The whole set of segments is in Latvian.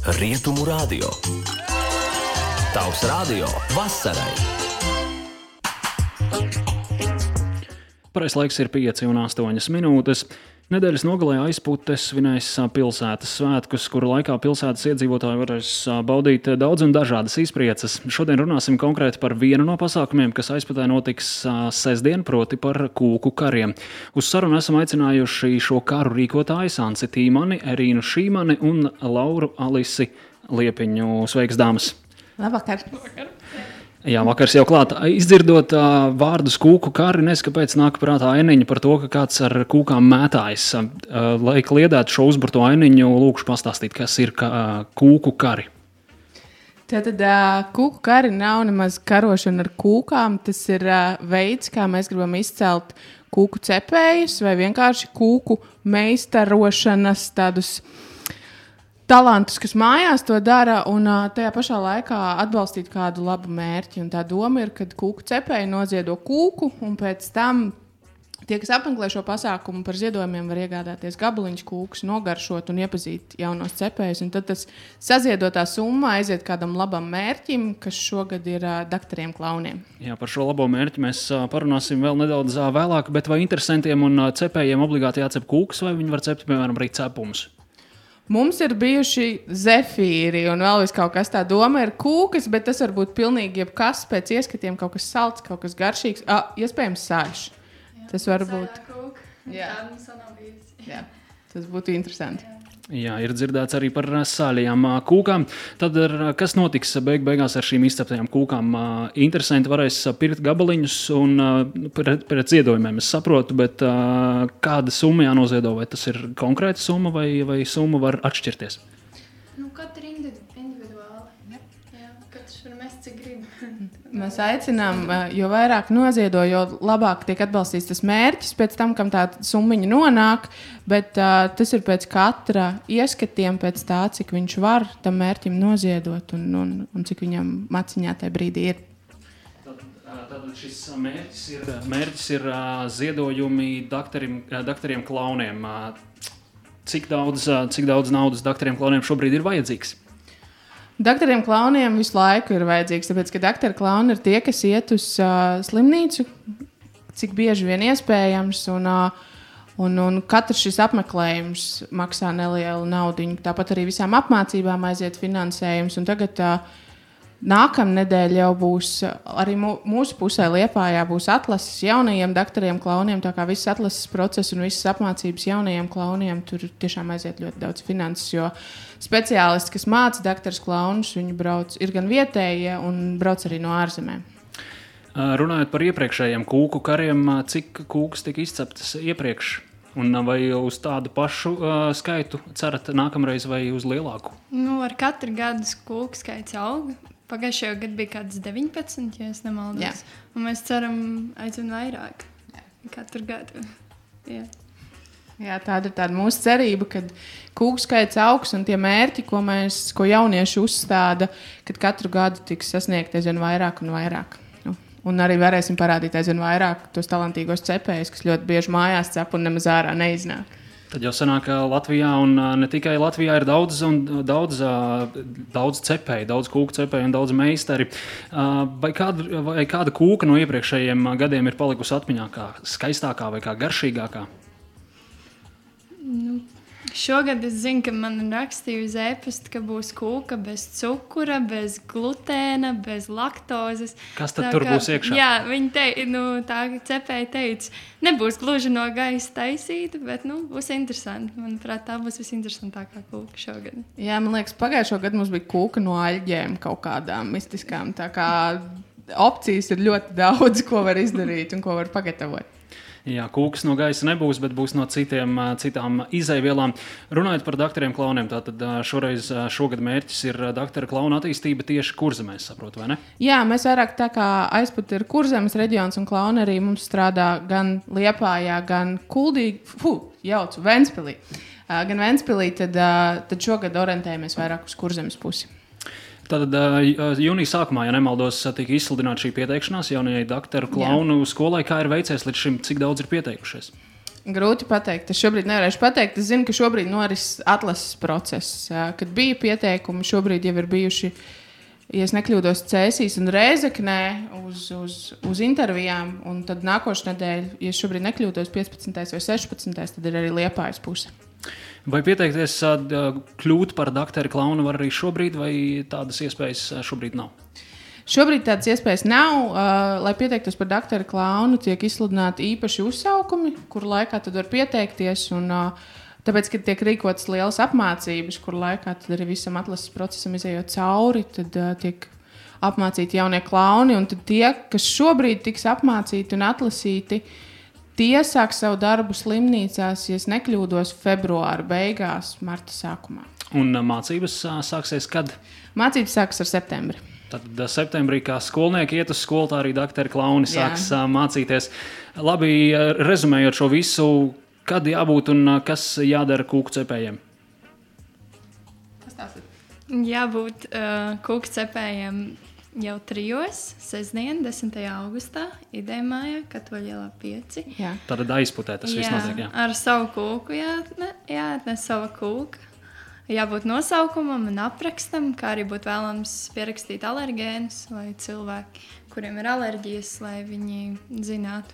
Rietumu radio. Tavs radio vasarai. Pareizais laiks ir 5:08 minūtes. Nedēļas nogalē Aizputes svinēs pilsētas svētkus, kuru laikā pilsētas iedzīvotāji varēs baudīt daudz un dažādas izprieces. Šodien runāsim konkrēti par vienu no pasākumiem, kas Aizputē notiks sestdien, proti par kūku kariem. Uz sarunu esam aicinājuši šo karu rīkotājus Anci Tīmani, Erīnu Šīmani un Lauru Alisi Liepiņu. Sveiks, dāmas! Labvakar! Jā, vakars jau klāt. Izdzirdot vārdus kūku kari, nezinu, kāpēc nāk prātā ainiņa par to, ka kāds ar kūkām mētājas. Lai kliedētu šo uzburto ainiņu, lūkšu pastāstīt, kas ir kūku kari. Tātad kūku kari nav nemaz karošana ar kūkām. Tas ir veids, kā mēs gribam izcelt kūku cepējus vai vienkārši kūku meistarošanas tādus talantus, kas mājās to dara, un tajā pašā laikā atbalstīt kādu labu mērķi. Un tā doma ir, ka kūku cepēji noziedo kūku, un pēc tam tie, kas apmeklē šo pasākumu par ziedojumiem, var iegādāties gabaliņus kūkus, nogaršot un iepazīt jaunos cepējus. Un tad tas saziedotā summa aiziet kādam labam mērķim, kas šogad ir daktariem klauniem. Jā, par šo labo mērķi mēs parunāsim vēl nedaudz vēlāk, bet vai interesantiem un cepējiem obligāti jācep kūkus, vai viņi var cept, piemēram, arī cepumus? Mums ir bijuši zefīri un vēl vis kaut kas tā doma ir kūkas, bet tas var būt pilnīgi jebkas pēc ieskatiem, kaut kas salds, kaut kas garšīgs, iespējams sāļš. Tas var būt. Jā. Jā, tas būtu interesanti. Jā, ir dzirdēts arī par sāļajām kūkām. Tad kas notiks beigās ar šīm izceptajām kūkām? Interesanti varēs pirkt gabaliņus un pret ziedojumiem, es saprotu, bet kāda summa jānoziedo? Vai tas ir konkrēta summa vai summa var atšķirties? Katra individuāli. Jā, katrs var mest, cik grib. Mēs aicinām, jo vairāk noziedo, jo labāk tiek atbalstīts tas mērķis pēc tam, kam tā summiņa nonāk, bet tas ir pēc katra ieskatiem, pēc tā, cik viņš var tam mērķim noziedot un cik viņam maciņā tajā brīdī ir. Tad šis mērķis ir ziedojumi daktariem klauniem. Cik daudz naudas daktariem klauniem šobrīd ir vajadzīgs? Daktariem klauniem visu laiku ir vajadzīgs, tāpēc, ka daktaru klauni ir tie, kas iet uz slimnīcu, cik bieži vien iespējams, un katrs šis apmeklējums maksā nelielu naudiņu. Tāpat arī visām apmācībām aiziet finansējums, un tagad nākamnedēļ jau būs arī mūsu pusē Liepājā būs atlases jaunajiem daktariem klauniem, tā kā viss atlases process un visas apmācības jaunajiem klauniem, tur tiešām aiziet ļoti daudz finanses, jo speciālisti, kas māca daktarus klaunus, viņi ir gan vietējie un brauc arī no ārzemēm. Runājot par iepriekšējiem kūku kariem, cik kūkas tika izceptas iepriekš? Un vai uz tādu pašu skaitu cerat nākamreiz vai uz lielāku? Ar katru gadu kūku skaits aug. Pagājušajā gadā bija kāds 19, ja es nemaldos. Jā. Un mēs ceram aizvien vairāk katru gadu. Jā. Jā, tāda ir tāda mūsu cerība, ka kūku skaits augs un tie mērķi, ko jaunieši uzstāda, kad katru gadu tiks sasniegt aizvien vairāk un vairāk. Un arī varēsim parādīt aizvien vairāk tos talantīgos cepējus, kas ļoti bieži mājās cep un nemaz ārā neiznāk. Tad jau sanāk, ka Latvijā un ne tikai Latvijā ir daudz cepēju, daudz kūku cepēju un daudz meistari. Vai kāda kūka no iepriekšējiem gadiem ir palikusi atmiņā kā skaistākā vai kā garšīgākā? Šogad es zinu, ka man rakstīja uz e-pasta, ka būs kūka bez cukura, bez glutēna, bez laktozes. Kas tad tur būs iekšā? Jā, tā cepēja teica, nebūs gluži no gaisa taisīta, bet būs interesanti. Manuprāt, tā būs visinteresantākā kūka šogad. Jā, man liekas, pagājušo gadu mums bija kūka no aļģēm kaut kādām mistiskām. Tā kā opcijas ir ļoti daudz, ko var izdarīt un ko var pagatavot. Jā, kūkas no gaisa nebūs, bet būs no citām izejvielām. Runājot par daktariem klauniem, tātad šogad mērķis ir daktara klauna attīstība tieši Kurzemēs, saprotu, vai ne? Jā, mēs vairāk tā kā Aizpute ir Kurzemes reģions un klauni arī mums strādā gan Liepājā, gan Ventspilī. Gan Ventspilī, tad šogad orientējamies vairāk uz Kurzemes pusi. Tātad jūnija sākumā, ja nemaldos, tika izsludināta šī pieteikšanās jaunajai daktaru klaunu skolai. Kā ir veicies līdz šim, cik daudz ir pieteikušies? Grūti pateikt. Es šobrīd nevarēšu pateikt. Es zinu, ka šobrīd noris atlases process. Kad bija pieteikumi, šobrīd jau ir bijuši, ja es nekļūdos, Cēsīs un Rēzeknē uz intervijām. Un tad nākošais nedēļa, ja šobrīd nekļūdos 15. vai 16. tad ir arī Liepājas puse. Vai pieteikties kļūt par doktoru klaunu var arī šobrīd, vai tādas iespējas šobrīd nav? Šobrīd tādas iespējas nav. Lai pieteiktos par doktora klaunu, tiek izsludināti īpaši uzsaukumi, kur laikā tad var pieteikties. Un, tāpēc, kad tiek rīkotas lielas apmācības, kur laikā tad arī visam atlases procesam izējot cauri, tad tiek apmācīti jaunie klauni. Un tad tie, kas šobrīd tiks apmācīti un atlasīti, tie sāks savu darbu slimnīcās, ja es nekļūdos, februāra beigās, marta sākumā. Un mācības sāksies kad? Mācības sāksies ar septembri. Tad septembrī, kā skolnieki iet uz skolu, tā arī doktori klauni sāks mācīties. Labi, rezumējot šo visu, kad jābūt un kas jādara kūku cepējiem? Kas tās ir? Jābūt kūku cepējiem jau 3. sestdien, 10. augustā, Idejmājā, Katoļielā 5. Jā. Tad aizputē tas viss notiek, jā. Ar savu kūku jāatnes sava kūka. Jābūt nosaukumam un aprakstam, kā arī būtu vēlams pierakstīt alergēnus, lai cilvēki, kuriem ir alerģijas, lai viņi zinātu,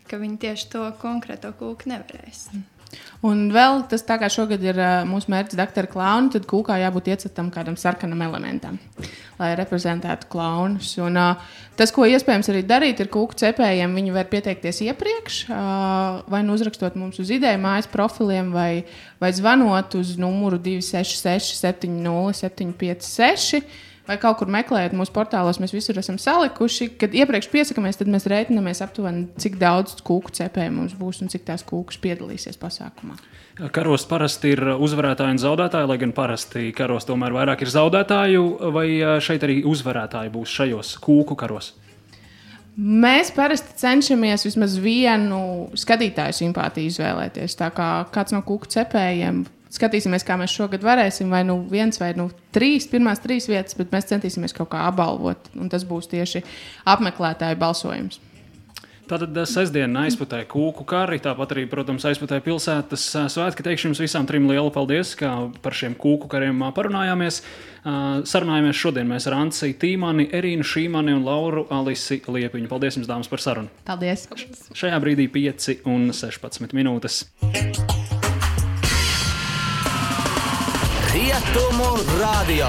ka viņi tieši to konkrēto kūku nevarēs. Un vēl tas, tā kā šogad ir mūsu mērķis doktora klauni, tad kūkā jābūt iecetam kādam sarkanam elementam, lai reprezentētu klaunus. Un tas, ko iespējams arī darīt, ir kūku cepējiem. Viņi var pieteikties iepriekš, vai nu uzrakstot mums uz Idejmājas profiliem, vai zvanot uz numuru 266 70 756. Vai kaut kur meklējot mūsu portālos, mēs visur esam salikuši. Kad iepriekš piesakāmies, tad mēs rēķinamies aptuveni, cik daudz kūku cepēju mums būs un cik tās kūkas piedalīsies pasākumā. Karos parasti ir uzvarētāji un zaudētāji, lai gan parasti karos tomēr vairāk ir zaudētāju, vai šeit arī uzvarētāji būs šajos kūku karos? Mēs parasti cenšamies vismaz vienu skatītāju simpātiju izvēlēties. Tā kā kāds no kūku cepējiem. Skatīsimies, kā mēs šogad varēsim, vai nu 1 vai nu 3, pirmās 3 vietas, bet mēs centīsimies kaut kā apbalvot, un tas būs tieši apmeklētāju balsojums. Tātad sestdiena aizputē kūku kari, tāpat arī, protams, aizputē pilsētas svētki. Teikšu jums visām 3 lielu paldies, kā par šiem kūku kariem parunājāmies. Sarunājāmies šodien mēs ar Anci Tīmani, Erīnu Šīmani un Lauru Alisi Liepiņu. Paldies jums, dāmas, par sarunu. Paldies! Šajā brīdī 5:16 minūtes. Rietumu radio.